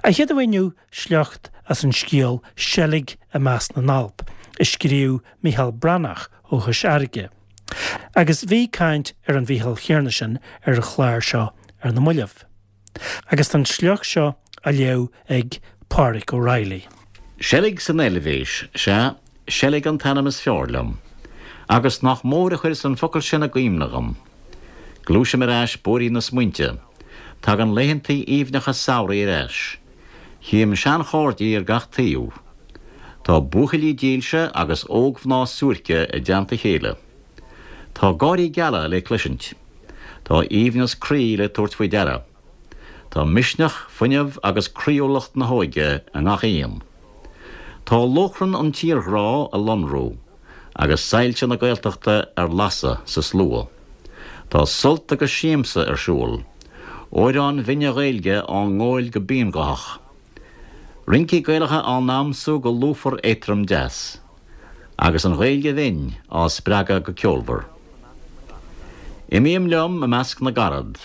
An chéad amháin inniu, sliocht as an scéal Seilg i Measc na nAlp, a scríobh Mícheál Breathnach ó Chois Fharraige. Agus bhí caint ar an Mhícheál chéanna sin ar an chlár seo ar na mallaibh. Agus tá an sliocht seo á léamh ag Pádraig Ó Raghallaigh. Seilg san Eilvéis, sea, seilg an t-ainm is fearr liom. Agus nach mór a chuireas an focal sin i gcuimhne dhom. Gluaisim ar ais bóithrín na smaointe. Tagann laethantaí aoibhneacha samhraidh ar ais. Chím seanchairdí ar gach taobh. Tá buachaillí dílse agus ógmhná suairce i dteannta a chéile. Tá gáirí geala le cloisint. Tá aoibhneas croí le tabhairt faoi deara. Tá misneach, fuinneamh agus croíúlacht na hóige i ngach aon. Tá lóchrann an tírghrá ag lonrú agus soilse na Gaeltachta ar lasadh sa slua. Tá sult agus siamsa ar siúl. Amhráin bhinne Ghaeilge á ngóil go bionghuthach. Rincí Gaelacha á ndamsú go lúfar éadtrom deas. Agus an Ghaeilge bhinn á spreagadh go ceolmhar. Imím liom i measc na gcarad.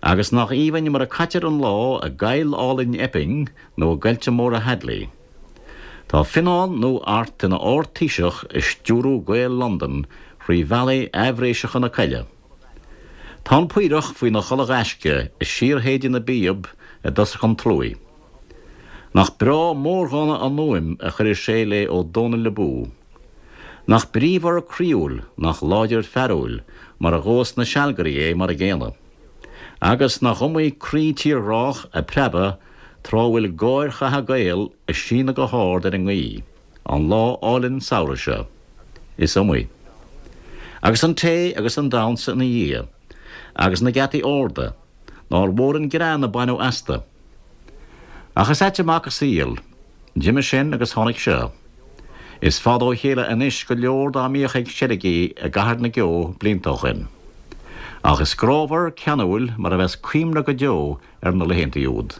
Agus nach aoibhinn mar a caitear an lá i gcoill álainn Epping nó i gcoillte móra Hadley. Tá Fionnán nó Art ina Ard-Taoiseach ag stiúrú Gaeil Londan thrí bhealaí aibhréiseacha na coille. Tá an Paorach faoina chodladh gaisce ag síorshéideadh na bpíob i dtosach an tslua. Nach breá mórdhánta an fhuaim a chuireas sé le Ó Dónaill abú. Nach bríomhar croíúil, nach láidir fearúil mar a ghóas na sealgairí é mar a gcéanna. Agus nach iomaí croí tírghrách ag preabadh tráth a bhfuil gáir chatha Gael ag síneadh go hard ar an ngaoth, an lá álainn samhraidh seo. Is iomaí. Agus an tae agus an damhsa ina dhiaidh. Agus na geataí arda. Nár mhór an greann a baineadh astu. Ach is ait an mac an saol. D'imigh sin agus tháinig seo. Is fada ó chéile anois go leor dá mbíodh ag seilgí i gCathair na gCeo blianta ó shoin. Ach is grámhar, ceanúil mar a bheas cuimhne go deo ar na laethantaí úd.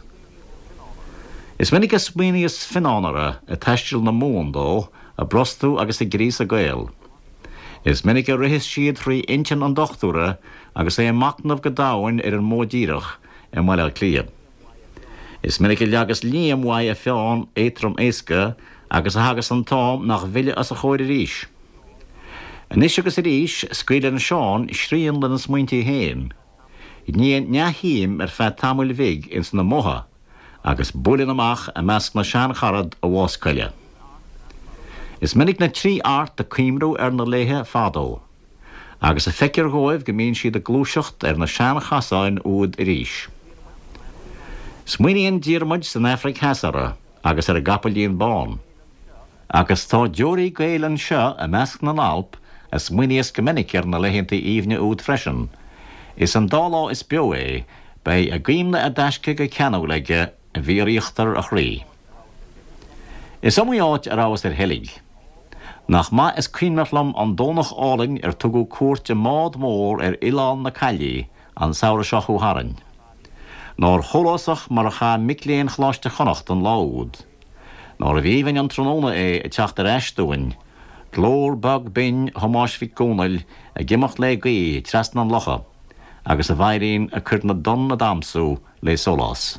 Is minic a smaoiníos Fionnán orthu ag taisteal na Mumhan dó, ag brostú agus ag gríosadh Gael. Is minic a ritheas siad thrí intinn an dochtúra agus é ag machnamh go domhain ar an modh díreach i mBaile Átha Cliath. Is minic a leagas Liam uaidh a pheann éadtrom éasca agus a thagas an t-am nach bhfilleadh os a chomhair arís. Anois agus arís scaoileann Seán srian lena smaointí féin. Níonn neamhshuim ar feadh tamaill bhig ins na modha agus buaileann amach i measc na seancharad i bhfás coille. Is minic na tri Art ag cuimriú ar na laethe fadó, agus a feictear dhóibh go mbíonn siad ag gluaiseacht ar na seanchasáin úd arís. Smaoiníonn Diarmuid san Afraic Theas orthu agus ar an gcapaillín bán. Agus tá deoraí Gael anseo i measc na nAlp a smaoiníos go minic ar na laethantaí aoibhne úd freisin, is an dá lá is beo é, beidh a gcuimhne i dtaisce go ceanúil aige i bhfíoríochtar a chroí. Is iomaí áit a rabhas ar sheilg. Nach maith is cuimhneach liom an Domhnach álainn ar tugadh cuairt i mbád mór ar Oileán na Caillí an samhradh seo chuaigh tharainn. Nár shólásach mar a chaith mic léinn Choláiste Chonnacht an lá úd. Nárbh aoibhinn an tráthnóna é ag teacht ar ais dúinn, glór bog binn Thomáis Mhic Dhomhnaill ag imeacht lé gaoth trasna an locha, agus a veidhlín ag cur na dtonn a damsú lé sólás.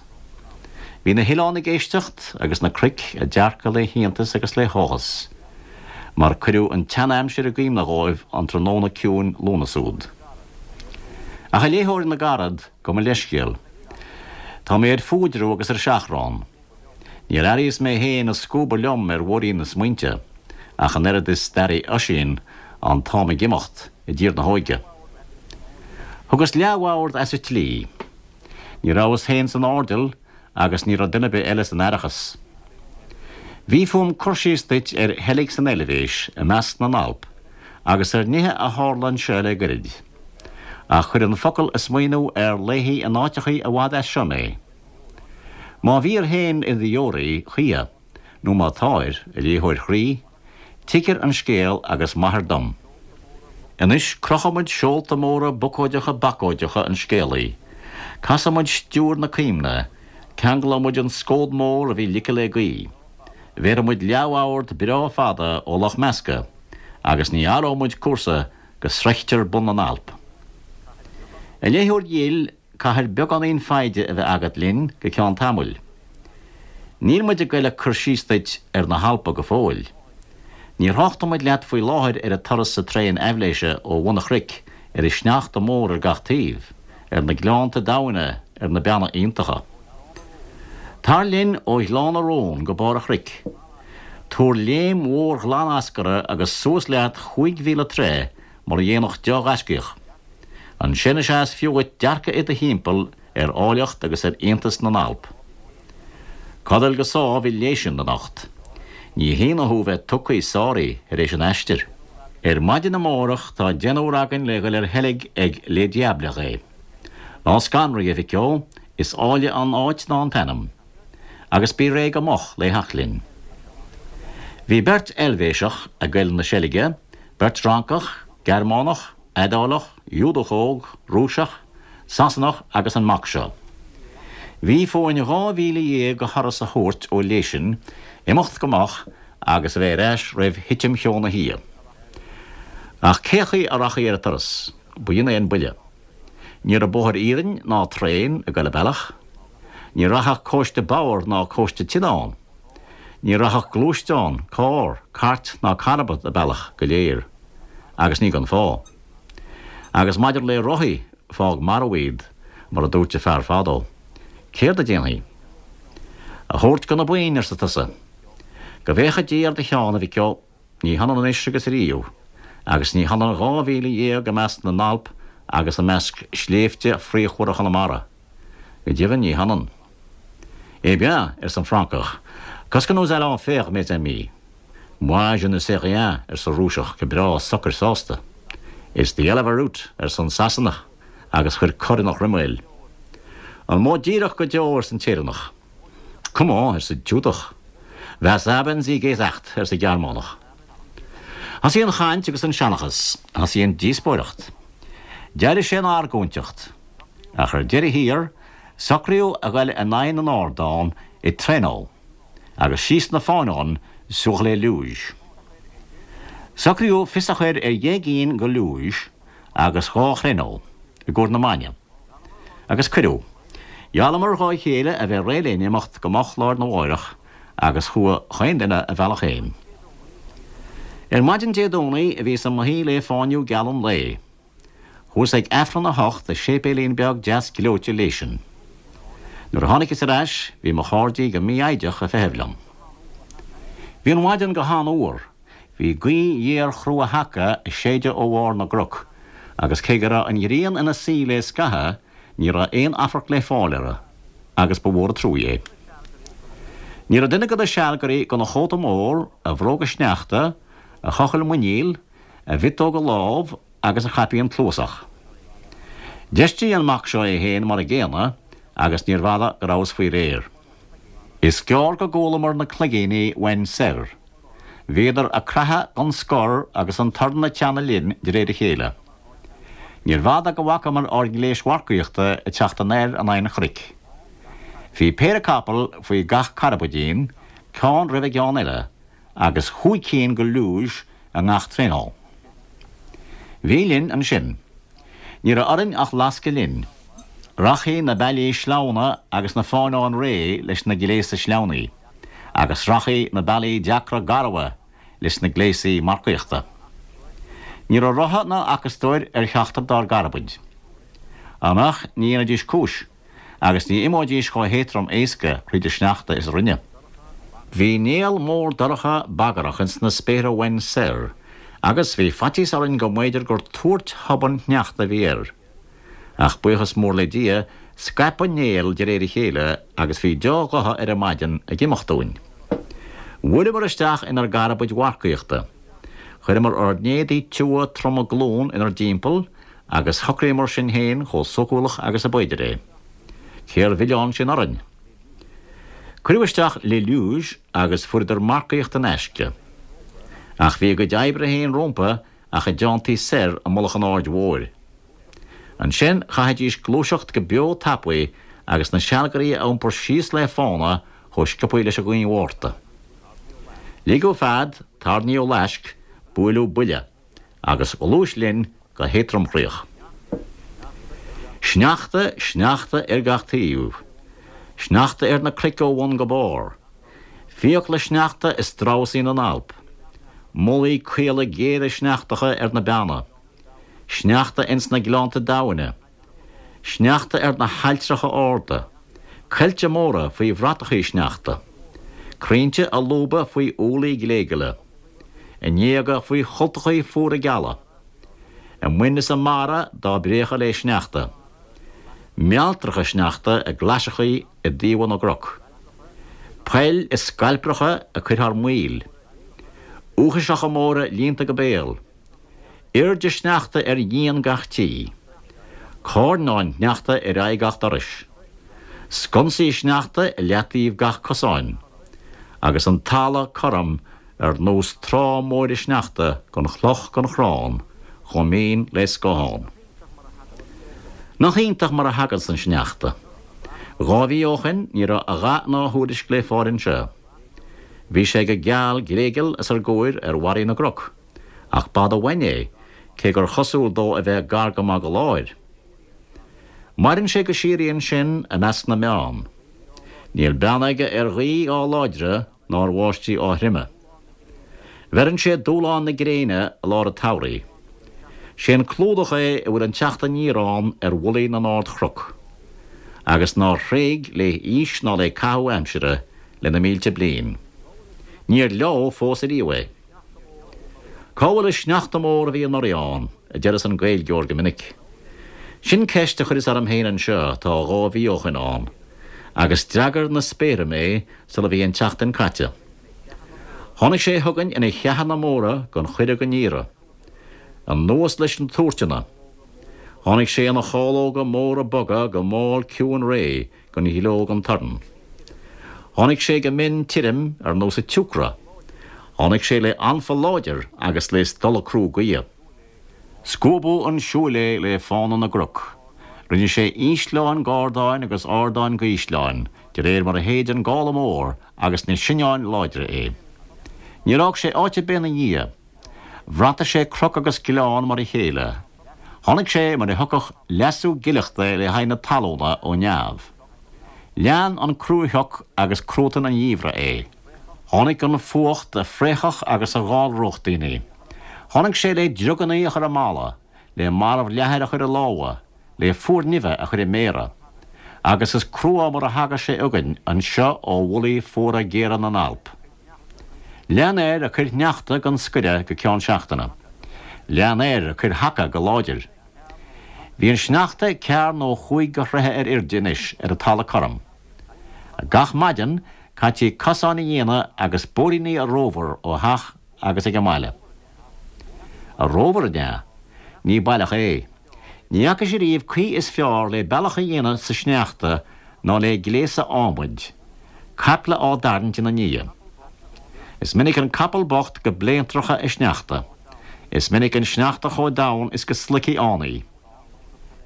Bhí na hoileáin ag éisteacht agus na cnoic ag dearcadh lé hiontas agus lé háthas, mar cuireadh an tsean-aimsir i gcuimhne dhóibh an tráthnóna ciúin Lúnasa úd. Ach a léitheoir na gcarad, gabh mo leithscéal. Tá mé ar fuaidreamh agus ar seachrán. Níor airíos mé féin ag scuabadh liom ar bhóithrín na smaointe, ach an oiread is d'airigh Oisín an t-am ag imeacht i dtír na hóige. Thugas leathbhord as an tslí. Ní rabhas féin san airdeall agus ní raibh duine ar bith eile san aireachas. Bhí fúm cur síos duit ar sheilg san Eilvéis i measc na nAlp agus ar nithe a tharla anseo le goirid. Ach chuir an focal ag smaoineamh ar laethaí in áiteachaí i bhfad as seo mé. Má bhíor féin i do dheoraí choíche, nó má táir, a léitheoir chroí, tuigir an scéal agus maithir dom. Anois crochfaidh muid seolta móra bocóideacha bacóideacha an scéalaí, casfaidh muid stiúir na cuimhne, ceanglóidh muid an scód mór a bhí ligthe le gaoth, bhéarfaidh muid leathbhord breá fada ó Loch Measca, agus ní athróidh muid cúrsa go sroichtear bun na nAlp. A léitheoir dhil, Caithfir beagáinín foighde a bheith agat linn go ceann tamaill. Níl muid ag goil ag cur síos duit ar na hAlpa go fóill. Ní thráchtfaidh muid leat faoi láthair ar an turas sa traein aibhléise ó bhun an chnoic, ar an sneachta mór ar gach taobh, ar na gleannta domhaine, ar na beanna iontacha. Tar linn ó Ghleann na Rón go barr an chnoic. Tabhair léim mhór ghlan eascartha agus suas leat chúig mhíle troigh mar a dhéanfadh deá-ghaiscíoch. Ansin is ea is fiú dhuit dearcadh i do thimpeall ar áilleacht agus ar iontas na nAlp. Codail go sámh i Léisin anocht. Ní hionadh thú bheith tugthaí sáraí tar éis an aistir. Ar maidin amárach tá deichniúr againn le dhul ar sheilg ag Les Diablerets. Ná scanraigh, a mhic ó, is áille an áit ná an t-ainm. Agus bí réidh go moch lé theacht linn. Bhí beirt Eilvéiseach ag goil 'na seilge, beirt Fhrancach, Gearmánach, Iodálach, Iúdach óg, Rúiseach, Sasanach agus an mac seo. Bhí fúinn 12,000 de thuras a thabhairt ó Léisin, imeacht go moch agus a bheith ar ais roimh thitim cheo na hoíche. Ach cé chaoi a rachfaí ar an turas? B'in é an buille. Ní raibh bóthar iarainn ná traein ag goil an bealach. Ní rachadh cóiste bodhar ná cóiste tine ann. Ní rachadh gluaisteán, carr, cairt ná carbad an bealach go léir. Agus ní gan fáth. Agus maidir le rothaí, fág marbh iad, mar a dúirt an fear fadó. Céard a déanfaí? A thabhairt go na boinn, arsa tusa. Go bhféacha Dia ar do cheann, a mhic ó. Ní hionann anois agus ariamh, agus ní hionann 12,000 i measc na nAlp agus i measc sléibhte fíochmhara Chonamara. Go deimhin, ní hionann. Eh bien, arsa an Francach, qu'est-ce que nous allons faire, mes amis? Moi, je ne sais rien, arsa Rúiseach go breá socair sásta. It's the hell of a route, arsa an Sasanach agus chuir cor ina chroiméal. An modh díreach go deo, arsa an tÉireannach. Comment, arsa an tIúdach. Was haben Sie gesagt, arsa an Gearmánach. Thosaigh an chaint agus an seanchas, thosaigh an díospóireacht. D'éirigh sé ina argóinteacht. Ach ar deireadh thiar, socraíodh a ghoil in aghaidh na n-ardán i traîneau agus síos na fáinneáin sur les luges. Socraíodh fios a chur ar dheich gcinn de luge agus dhá thraîneau i gcomhair na maidne. Agus cuireadh. Gheallamar dhá chéile a bheith réidh linn imeacht go moch lá ar na mháireach agus chuaigh chaon duine a bhealach fhéin. Ar maidin Dé Domhnaigh bhíos i mo shuí lé fáinniú geal an lae. Chuas ag Aifreann a hocht i séipéilín beag deas gleoite Léisin. Nuair a tháinigeas ar ais bhí mo chairdí go mífhoighdeach ag feitheamh liom. Bhí an mhaidin go han-fhuar. Bhí gaoth ghéar chrua thaca ag séideadh ó bharr na gcnoc, agus cé go raibh an ghrian ina suí le scaitheamh, ní raibh aon amharc le fáil uirthi, agus ba mhór an truaigh é. Ní raibh duine de na sealgairí gan a chóta mór, a bhróga sneachta, a chochall muiníl, a mhiotóga lámh agus a chaipín cluasach. D'fheistigh an mac seo é féin mar an gcéanna, agus níorbh fhada go rabhas faoi réir. Is gearr go gcualamar na cloigíní uainn soir. Bhíodar ag creathadh gan scor agus an torann ag teannadh linn de réir a chéile. Níorbh fhada go bhfacamar ár ngléis mharcaíochta ag teacht anoir in aghaidh an chnoic. Bhí péire capall faoi gach carbaidín, ceann roimh an gceann eile, agus chúig cinn de luge i ngach traîneau. Bhí linn ansin. Ní raibh orainn ach lascadh linn. Rachaidh na bealaí sleamhna agus na fáinneáin réidh leis na gléasa sleamhnaí, agus rachaidh na bealaí deacra garbha leis na gléasaí marcaíochta. Ní raibh rotha ná acastóir ar cheachtar dár gcarbaid. Ach ní dhéanfaidís cúis. agus ní imeoidís chomh héatrom éasca thríd an sneachta is a rinneadh. Bhí néal mór dorcha bagrach ins na spéartha uainn soir, agus bhí faitíos orainn go mb'fhéidir gur tuairt thobann shneachta a bhí air. Ach buíochas mór le Dia, scaip an néal de réir a chéile agus bhí deá-ghotha ar an maidin ag imeacht uainn. Bhuaileamar isteach inár gcarbaid mharcaíochta. Chuireamar ár n-éadaí tiubha troma glún inár dtimpeall Agus shocraíomar sinn féin chomh sócúlach agus a b'fhéidir é. Cér mhilleán sin orainn? Cuireadh isteach les luges agus fuaireadar marcaíocht in aisce. Ach bhí a gcuid oibre féin rómpa ach a dteanntaí soir i mullach an Aird Mhóir. Ansin chaithfidís gluaiseacht go beo tapaidh agus na sealgairí a iompar síos le fána chomh sciobthaí leis an ghaoth Mhárta. Ligeadh fead, tarraingíodh laisc, buaileadh buille. agus ghluais linn go héadromchroíoch. Sneachta, sneachta ar gach taobh. Sneachta ar na cnoic ó bhun go barr. Fiacla sneachta is dramhasaí na nAlp. Mullaí caola géara sneachtacha ar na beanna. Sneachta ins na gleannta domhaine. Sneachta ar na hailltreacha arda. Coillte móra faoi bhratachaí sneachta. Crainnte a lúbadh faoi ualaí gléigeala. A ngéaga faoi chultachaí fuara geala. A mboinn is a mbarra dá bpréachadh lé sneachta. Mealltracha sneachta i gclaiseachaí i dtaobha na gcnoc. Poill is scailpreacha ag cur thar maoil. Uachaiseacha móra líonta go béal. Airde sneachta ar dhíon gach tí. Cairneáin shneachta ar aghaidh gach dorais. Sconsaí sneachta i leataobh gach cosáin. Agus an talamh cothrom ar nós trá móire sneachta gan chloch gan chrann, chomh mín le scáthán. Nach iontach mar a thaganns an sneachta. Dhá mhí ó shoin ní raibh a dhath ná a thuairisc le fáil anseo. Bhí sé go geal gléigeal os ár gcomhair ar bharraí na gcnoc, ach b'fhada uainn é, cé gur chosúil dó a bheith gar go maith go láir. Maireann sé go síoraí ansin i measc na mbeann. Níl beann aige ar ghaoth á láidre ná ar bháistí á throime. Bheireann sé dúshlán na gréine i lár an tsamhraidh. Sé an clúdach é a bhfuil an teacht aniar ann ar mhullaí na n-ardchnoc, agus nár thréig lé haois ná lé caitheamh aimsire le na mílte bliain. Níor leo fós ariamh é. Cá bhfuil an sneachta mór a bhí anuraidh ann, a deireas an Gaeilgeoir go minic. Sin ceist a chuireas orm féin anseo tá dhá mhí ó shoin ann, agus d'fhreagair na spéartha mé sula bhí an tseachtain caite. Tháinig sé chugainn ina cheathanna móra gan chuireadh gan iarraidh. Anuas leis na tuairteanna. Tháinig sé ina chálóga móra boga go mall ciúin réidh gan ghleo gan torann. Tháinig sé go mion tirim ar nós an tsiúcra. Tháinig sé le anfa láidir agus le stolladh crua gaoithe. Scuabadh 'un siúil é le fána na gcnoc. Rinne sé ísleáin dh'ardáin agus ardáin dh'ísleáin, de réir mar a shéid an gála mór agus na sinneáin láidre é. Níor fhág sé áit ar bith ina dhiaidh. Bhrataigh sé cnoc agus gleann mar a chéile. Tháinig sé mar a thiocfadh leasú gileachta le haghaidh na talúna ó neamh. Lean an cruashoc agus cruatan an gheimhridh é. Tháinig an fuacht a phréachfadh agus a dh'allródh daoine. Tháinig sé le driogannaí a chur i mballa, le marbh leathair a chur i lámha, le fuar nimhe a chur i méara. Agus is crua mar a thagas sé chugainn anseo ó mhullaí fuara géara na nAlp. Lean air ag cur sneachta gan scoireadh go ceann seachtaine. Lean air ag cur haca go láidir. Bhí an sneachta cearr nó chúig de throithe ar airde anois ar an talamh cothrom. Gach maidin caití cosáin a dhéanamh agus bóithríní a rómhar ó theach agus ag an mbaile. A rómhar, an ea? Ní baileach é. Ní fhacais ariamh caoi is fearr le bealach a dhéanamh sa sneachta ná le gléasadh adhmaid, caiple á dtarraingt ina ndiaidh. Is minic an capall bocht go bléantracha i sneachta. Is minic an sneachta chomh domhain is go sloigfidh fhánaí.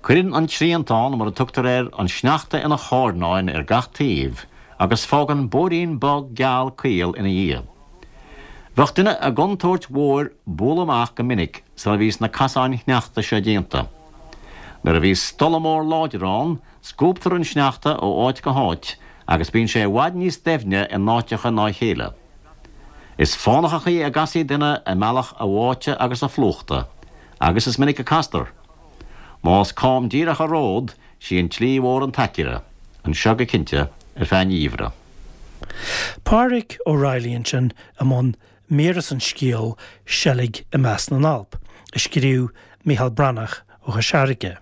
Cuireann an triantán, mar a tugtar air, an sneachta ina chairneáin ar gach taobh agus fágann bóithrín bog geal caol ina dhiaidh. Bheadh duine i gcontúirt mhór bualadh amach go minic sula bhíos na casáin shneachta seo déanta. Nuair a bhíos stolladh mór láidir ann, scuabtar an sneachta ó áit go háit agus bíonn sé i bhfad níos doimhne in áiteacha ná a chéile. Is fánach an chaoi a gcasfaidh duine i mbealach a bháite agus a phlúchta, agus is minic a castar. Más cam díreach an ród, sí an tslí mhór an t-aicearra, anseo go cinnte, ar feadh an gheimhridh. Pádraig Ó Raghallaigh ansin i mbun mír as an scéal Seilg i Measc na nAlp, a scríobh Mícheál Breathnach ó Chois Fharraige.